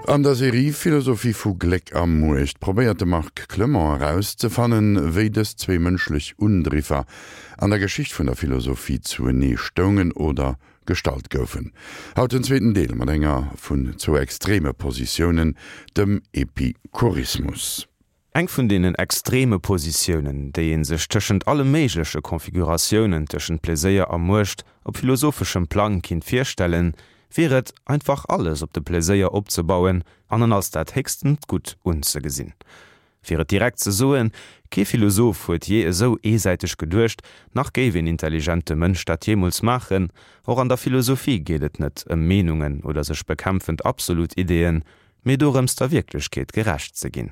An der Serie Philosophie vu Gléck a Muecht probéiert de Marc Clement erauszefannen, wéi dës zwéi mënschlech Undriffer an der Geschicht vun der Philosophie zuenee stoungen oder gestallt goufen. Haut den zweeten Deel mat enger vun zwou extreme Positiounen, dem Epikurismus. Eng vun deenen extreme Positiounen, déi ee sech tëschent alle méigleche Konfiguratiounen tëschent Pleséier a Muecht op philosopheschem Plang kinnt virstellen, wier et, einfach alles op de Pleséier opzebauen an en als dat héchstent Gutt unzegesinn. Fir et direkt ze soen, kee Philosoph huet jee esou eesäiteg geduecht, nach géif een intelligente Mënsch dat jeemools maachen. Och an der Philosophie geet et net ëm Meenungen oder sech bekämpfend absolut Ideeën, mee dorëms der Wierklechkeet gerecht ze ginn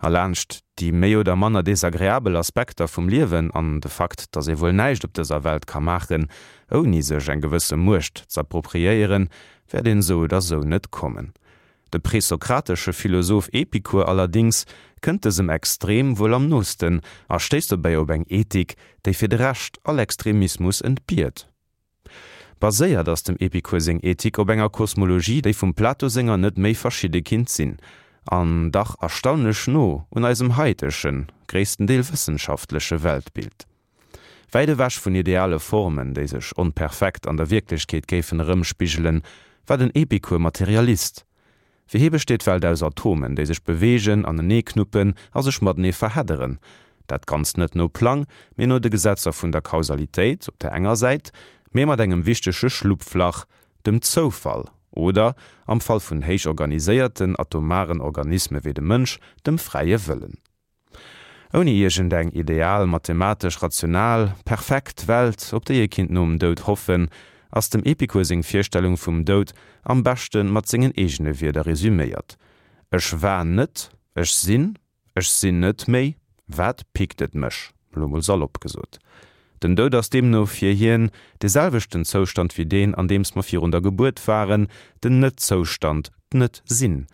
a laanscht déi méi oder manner desagreabel Aspekter vum Liewen an de Fakt, dass ee wuel näischt op dëser Welt ka maachen, ouni sech eng gewësse Muecht z'appropriéieren, wäert een esou oder esou net kommen. De presokratesche Philosoph Epikur allerdings kënnt dësem Extrem wuel am noosten a stéisst dobäi op eng Ethik, déi fir de Rescht all Extremismus entbiert. Baséiert ass dem Epikur seng Ethik op enger Kosmologie, déi vum Plato senger net méi verschidde kinnt sinn, an dach erstaunlech no un eisem haitegen, gréissten Deel wëssenschaftleche Weltbild. Wäit ewech vun ideale Formen, déi sech onperfekt an der Wierklechkeet géifen erëmspigelen, war den Epikur Materialist. Fir hie besteet d'Welt aus Atomen, déi sech beweegen, aneneeknuppen a sech matenee verhedderen. Dat Ganzt net no Plang, mee no de Gesetzer vun der Kausalitéit op der enger Säit, mee mat engem wichtege Schlupflach, dem Zoufall, oder, am Fall vun héich organiséierten atomaren Organisme wéi dem Mënsch, dem fräie Wëllen. Ouni iergend eng ideal, mathematesch rational, perfekt Welt, op déi ee kinnt nom Doud hoffen, ass dem Epikur seng Virstellung vum Doud am beschte mat sengen eegene Wierder resüméiert, Ech war net, ech sinn, ech sinn net méi, wat pickt et mech? Elo mol salopp gesot. Den Doud ass deemno fir hien dee selwechten Zoustand wéi deen, an deems mer virun der Gebuert waren, den Net-Zoustand, d'Net-Sinn.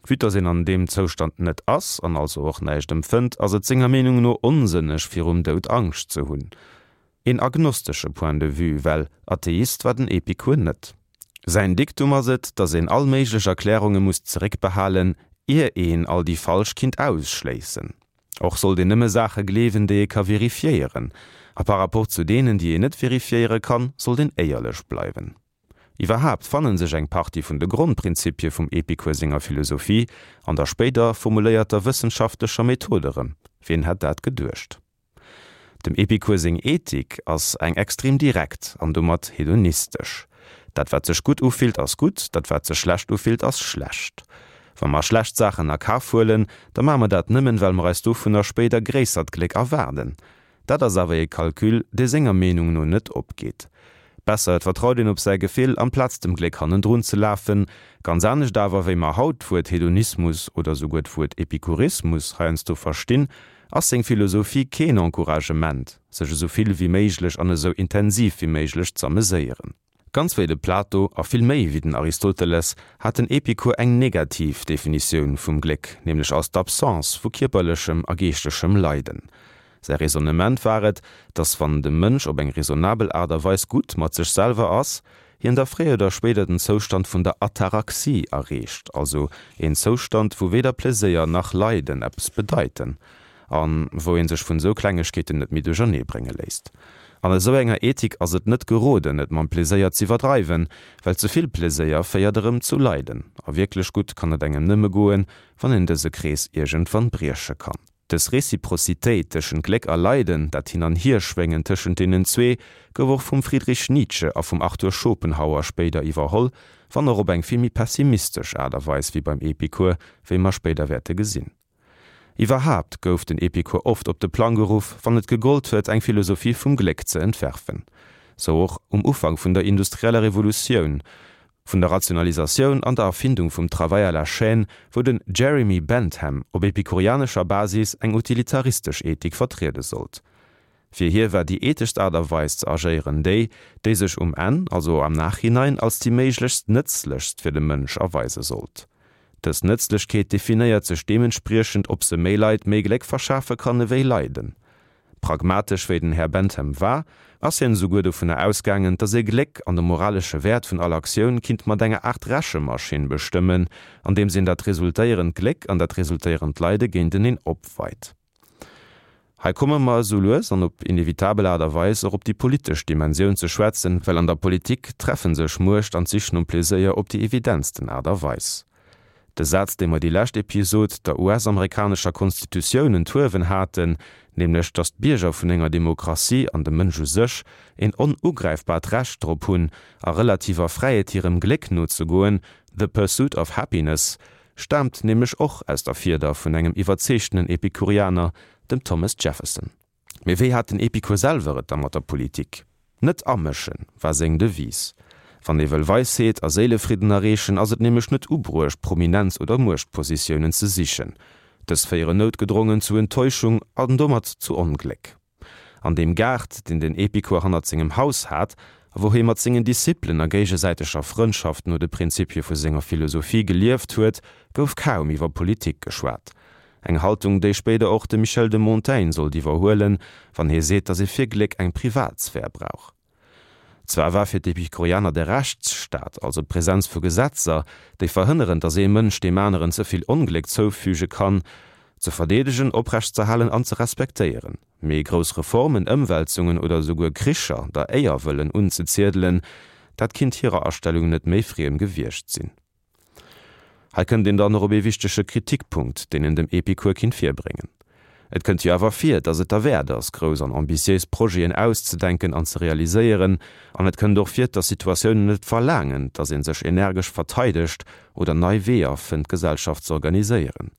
Vue dass een an deem Zoustand net ass an also och näischt empfënnt, ass et senger Meenung no onsënneg virum Doud Angscht ze hunn. Een agnostesche Point de vue, well Atheist war den Epikur net. Säin Diktum ass et, dass een all méiglech Erklärunge muss zeréckbehalen, ier een all déi falsch kinnt ausschléissen. Och sollt een nëmme Saache gleewen, déi ee ka verifiéieren. A par rapport zu deenen, déi een net verifiéiere kann, sollt een éierlech bleiwen. Iwwerhaapt fannen sech eng Partie vun de Grondprinzipie vum Epikur senger Philosophie an der spéider formuléierter wëssenschaftlecher Method erëm. Wien hätt dat geduecht? Dem Epikur seng Ethik ass eng extrem direkt an domat hedonistesch. Dat wat sech gutt ufillt ass gutt, dat wat sech schlecht ufillt ass schlecht. Wa mer schlecht Saachen a Kaf huelen, da maache mer dat nëmmen, well mer eis dovunner spéider gréissert Gléck erwaarden. Dat ass awer ee Calcul, dee senger Meenung no net opgeet. Besser et vertraut een op säi Gefill, amplaz dem Gléck hannendrun ze lafen. Ganz anescht awer, wéi mer haut d'Wuert Hedonismus oder souguer d'Wuert Epikurismus heiansdo verstinn, ass seng Philosophie keen Encouragement, sech esou vill wéi méiglech an esou intensiv wéi méiglech z'ameséieren. Ganz wéi de Plato, a vill méi wéi den Aristoteles, hat den Epikur eng negativ Definitioun vum Gléck, nämlech als d'Absence vu kierperlechem a geeschtegem Leiden. Säi Raisonnement war et, datt wann de Mënsch op eng raisonnabel Aart a Weis gutt mat sech selwer ass, hien da fréier oder spéider den Zoustand vun der Ataraxie erreecht, also een Zoustand, wou weder Pleséier nach Leiden eppes bedeiten. An wou een sech vun esou Klengegkeeten net méi duerchernee brénge léisst. An esou enger Ethik ass et net geroden, et mam Pleséier z'iwwerdreiwen, well ze vill Pleséier féiert erëm zu Leiden. A wierklech gutt kann et engem nëmme goen, wann een dëse Krees iergendwann brieche kann. Dës Reciprocitéit tëschent Gléck a Leiden, dat Hin an Hierschwéngen tëschent deenen zwee, gouf och vum Friedrich Nietzsche a vum Arthur Schopenhauer spéider iwwerholl, wann och op eng vill méi pessimistesch Aart a Weis wéi beim Epikur, wéi mer spéider wäerte gesinn. Iwwerhaapt gouf den Epikur oft op de Plang geruff, wann et gegollt huet, eng Philosophie vum Gléck ze entwerfen. Sou och um Ufank vun der industrieller Revolutioun, vun der Rationalisatioun an der Erfindung vum Travail à la chaîne, wou den Jeremy Bentham op epikurianescher Basis eng utilitaristesch Ethik vertriede sollt. Fir hie war déi etheschst Aart a Weis ze agéieren déi, déi sech um Enn, also am Nachhinein, als déi méiglechst nëtzlechst fir de Mënsch erweise sollt. Dës Nëtzlechkeet definéiert sech deementspriechend, ob se méi Leit méi Gléck verschafe kann ewéi Leiden. Pragmatesch wéi den Här Bentham war, ass hien esouguer dovunner ausgaangen, dass ee Gléck an de moralesche Wäert vun all Aktioun kinnt mat enger Aart Rechemaschinn bestëmmen, andeems een dat resultéierend Gléck an dat resultéierend Leide géinteneen opweit. Hei komme mer esou lues an op inevitabel Aart a Weis och op déi politesch Dimensioun ze schwätzen, well an der Politik treffe sech Muecht an d'Sich nom Pleséier op déi evidentsten Aart a Weis. De Saz, dee mer déi lescht Episod der US-amerikanescher Konstitutioun enthuewen haten, nämlech datt d'Bierger vun enger Demokratie an de Mënsch u sech een onugräifbart Recht drop hunn, a relativer Fräiheet hirem Gléck nozegoen, the pursuit of happiness, staamt nämlech och aus der Fieder vun engem iwwerzeegtenen Epikurianer, dem Thomas Jefferson. Mee wéi hat den Epikur selwer et da mat der Politik? Net amëschen, war seng Devise. Wann ee wëll Weisheet a Séilefridden erreechen, ass et nämlech net ubruecht, Prominenz oder Muechtpositiounen ze sichen. Dës féieren noutgedrongen zu Enttäuschung an domat zu Ongléck. An deem Gaart, deen den Epikur hannert sengem Haus hat, a wou hie mat sengen Disciplen a géigesäiteger Frëndschaft no de Prinzipie vu senger Philosophie gelieft huet, gouf kaum iwwer Politik geschwat. Eng Haltung, déi spéider och de Michel de Montaigne sollt iwwerhuelen, wann hie seet, datt ee fir Gléck eng Privatsphär brauch. Zwar war fir d'Epikurianer de Rechtsstaat, also d'Presenz vu Gesetzer, déi verhënneren, datt ee Mënsch deem aneren ze vill Ongléck zoufüge kann, ze verdeedegen, oprechtzerhalen an ze respektéieren. Mee grouss Reformen, Ëmwälzungen oder esouguer Kricher der Éier wëllen unzeziedelen, dat kinnt hirer Astellung net méi friem gewiescht sinn. Hei kënnt een dann och op ee wichtege Kritikpunkt, deen een dem Epikur kinnt virbréngen. Et kënnt jo awer vir, datt et derwäert ass, grouss an ambitiéis Projeten auszedenken an ze realiséieren, an et kënnt och vir, datt Situatiounen et verlaangen, datt ee sech energesch verteidegt oder nei Weeër fënnt, d'Gesellschaft z'organiséieren.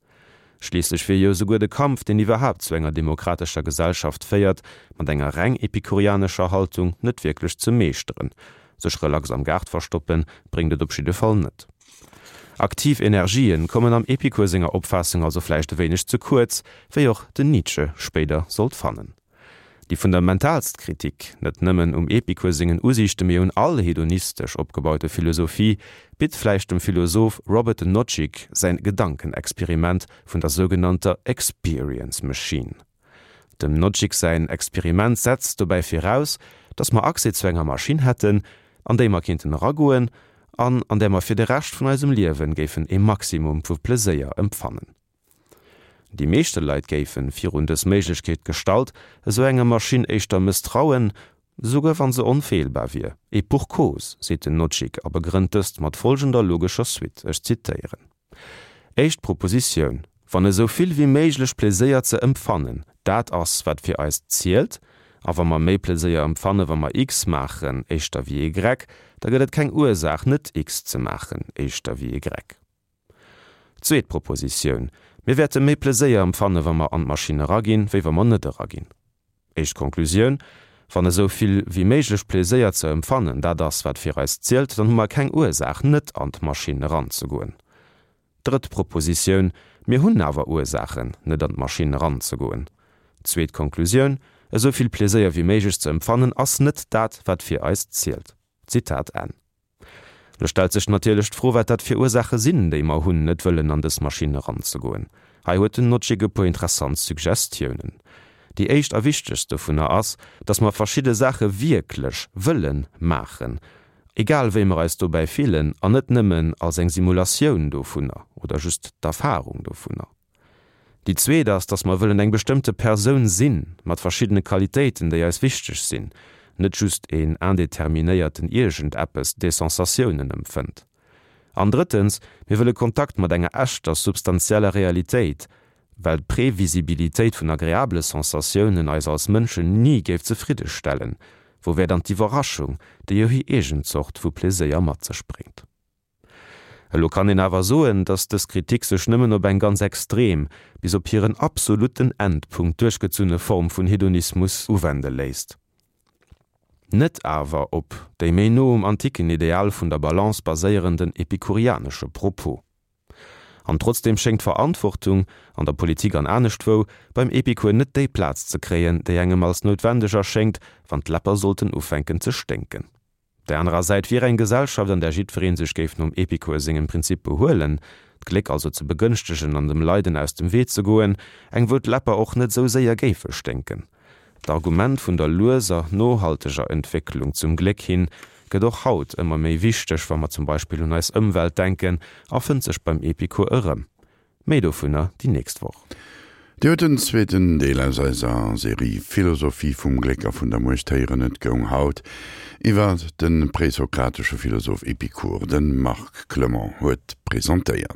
Schliisslech wier jo esouguer de Kampf, deen iwwerhaapt zu enger demokratescher Gesellschaft féiert, mat enger reng epikurianescher Haltung net wierklech ze meeschteren. Sech relax am Gaart verstoppen, bréngt et op jidde Fall net. Aktiv Energien kommen am Epikur senger Opfaassung also vläicht e wéineg ze kuerz, wéi och den Nietzsche spéider sollt fannen. Déi fundamentalst Kritik, net nëmmen um Epikur sengen Usiichte mee un all hedonistesch opgebaute Philosophie, bitt vläicht dem Philosoph Robert Nozick säin Gedankenexperiment vun der sougenannter Experience Machine. Dem Nozick säin Experiment setzt dobäi viraus, datt mer Accès zu enger Maschinn hätten, an déi mer kéinten eragoen an an där mer fir de Rescht vun eisem Liewen géifen ee Maximum vu Pleséier empfannen. Déi meeschte Leit géifen, virun dës Méiglechkeet gestallt, esou enger Maschinn éischter mësstrauen, esouguer wann se onfeelbar wier. Et pour cause, seet den Nozick a begrënnt dëst mat folgender logescher Suite, ech zitéieren, Éischt Propositioun, Wann esou vill wéi méiglech Pleséier ze empfannen dat ass, wat fir eis zielt, a wa mer méi Pleséier empfanne wa mer X maachen éischter wéi Y, da gëtt et keng Ursaach net X ze maachen éischter wéi Y. Zweet Propositioun, Mir wäerte méi Pleséier empfanne wa mer an d'Maschinn eraginn, wéi wa mer net eraginn. Éischt Konklusioun, Wann esou vill wéi méiglech Pleséier ze empfannen dat ass, wat fir eis zielt, dann hu mer keng Ursaach, net an d'Maschinn eranzegoen. Drëtt Propositioun, Mir hunn awer Ursaachen, net an d'Maschinn eranzegoen. Zweet Konklusioun, Esou vill Pleséier wéi méiglech ze empfannen ass net dat, wat fir eis zielt. Zitat Enn. Lo stellt sech natierlech d'Fro, wat dat fir Ursaache sinn, déi mer hunn, net wëllen an dës Maschinn eranzegoen. Hei huet den Nozick e puer interessant Suggestiounen. Déi éischt a wichtegst dovunner ass, dass mer verschidde Saache wierklech wëlle maachen, egal wéi mer eis dobäi fillen, an net nëmmen als eng Simulatioun dovunner oder just d'Erfarung dovunner. Déi zweet ass, dass mer wëllen eng bestëmmte Persoun sinn, mat verschiddene Qualitéiten, déi eis wichteg sinn, net just een indeterminéierten Iergendeppes, dee Sensatiounen empfënnt. An drëttens, mir wëlle Kontakt mat enger echter, substanzieller Realitéit, well d'Previsibilitéit vun agreabele Sensatiounen eis als Mënschen ni géif zefridde stellen. Wou wär dann d'Iwwerraschung, déi jo hir eegen Zort vu Pleséier mat sech bréngt? Elo kann een awer soen, datt dës Kritik sech nëmmen op eng ganz extrem, bis op hiren absolutten Endpunkt duerchgezunne Form vun Hedonismus uwende léisst, net awer op déi méi no um antiken Ideal vun der Balance baséierenden epikurianesche Propos. An trotzdeem schéngt d'Verantwortung, an der Politik an aneschtwou, beim Epikur net déi Plaz ze kréien, déi engem als noutwendeg erschéngt, wann d'Läpper sollten ufänken ze sténken. Op der anerer Säit wier eng Gesellschaft, an där jiddweree sech géif nom Epikur sengem Prinzip behuelen, d'Gléck also ze begënschtegen an dem Leiden aus dem Wee ze goen, eng wou d'Läpper och net esou séier géife sténken. D'Argument vun der lueser, nohalteger Entwécklung zum Gléck hin gëtt och haut ëmmer méi wichteg, wa mer zum Beispill un eis Ëmwelt denken, a fënnt sech beim Epikur erëm. Méi dovunner déi nächst Woch. Dir huet den zweeten Deel aus eiser Serie Philosophie vum Gléck a vun der Muecht héieren. Et goung haut iwwer de présokratesche Philosoph Epikur. De Marc Clement huet presentéiert.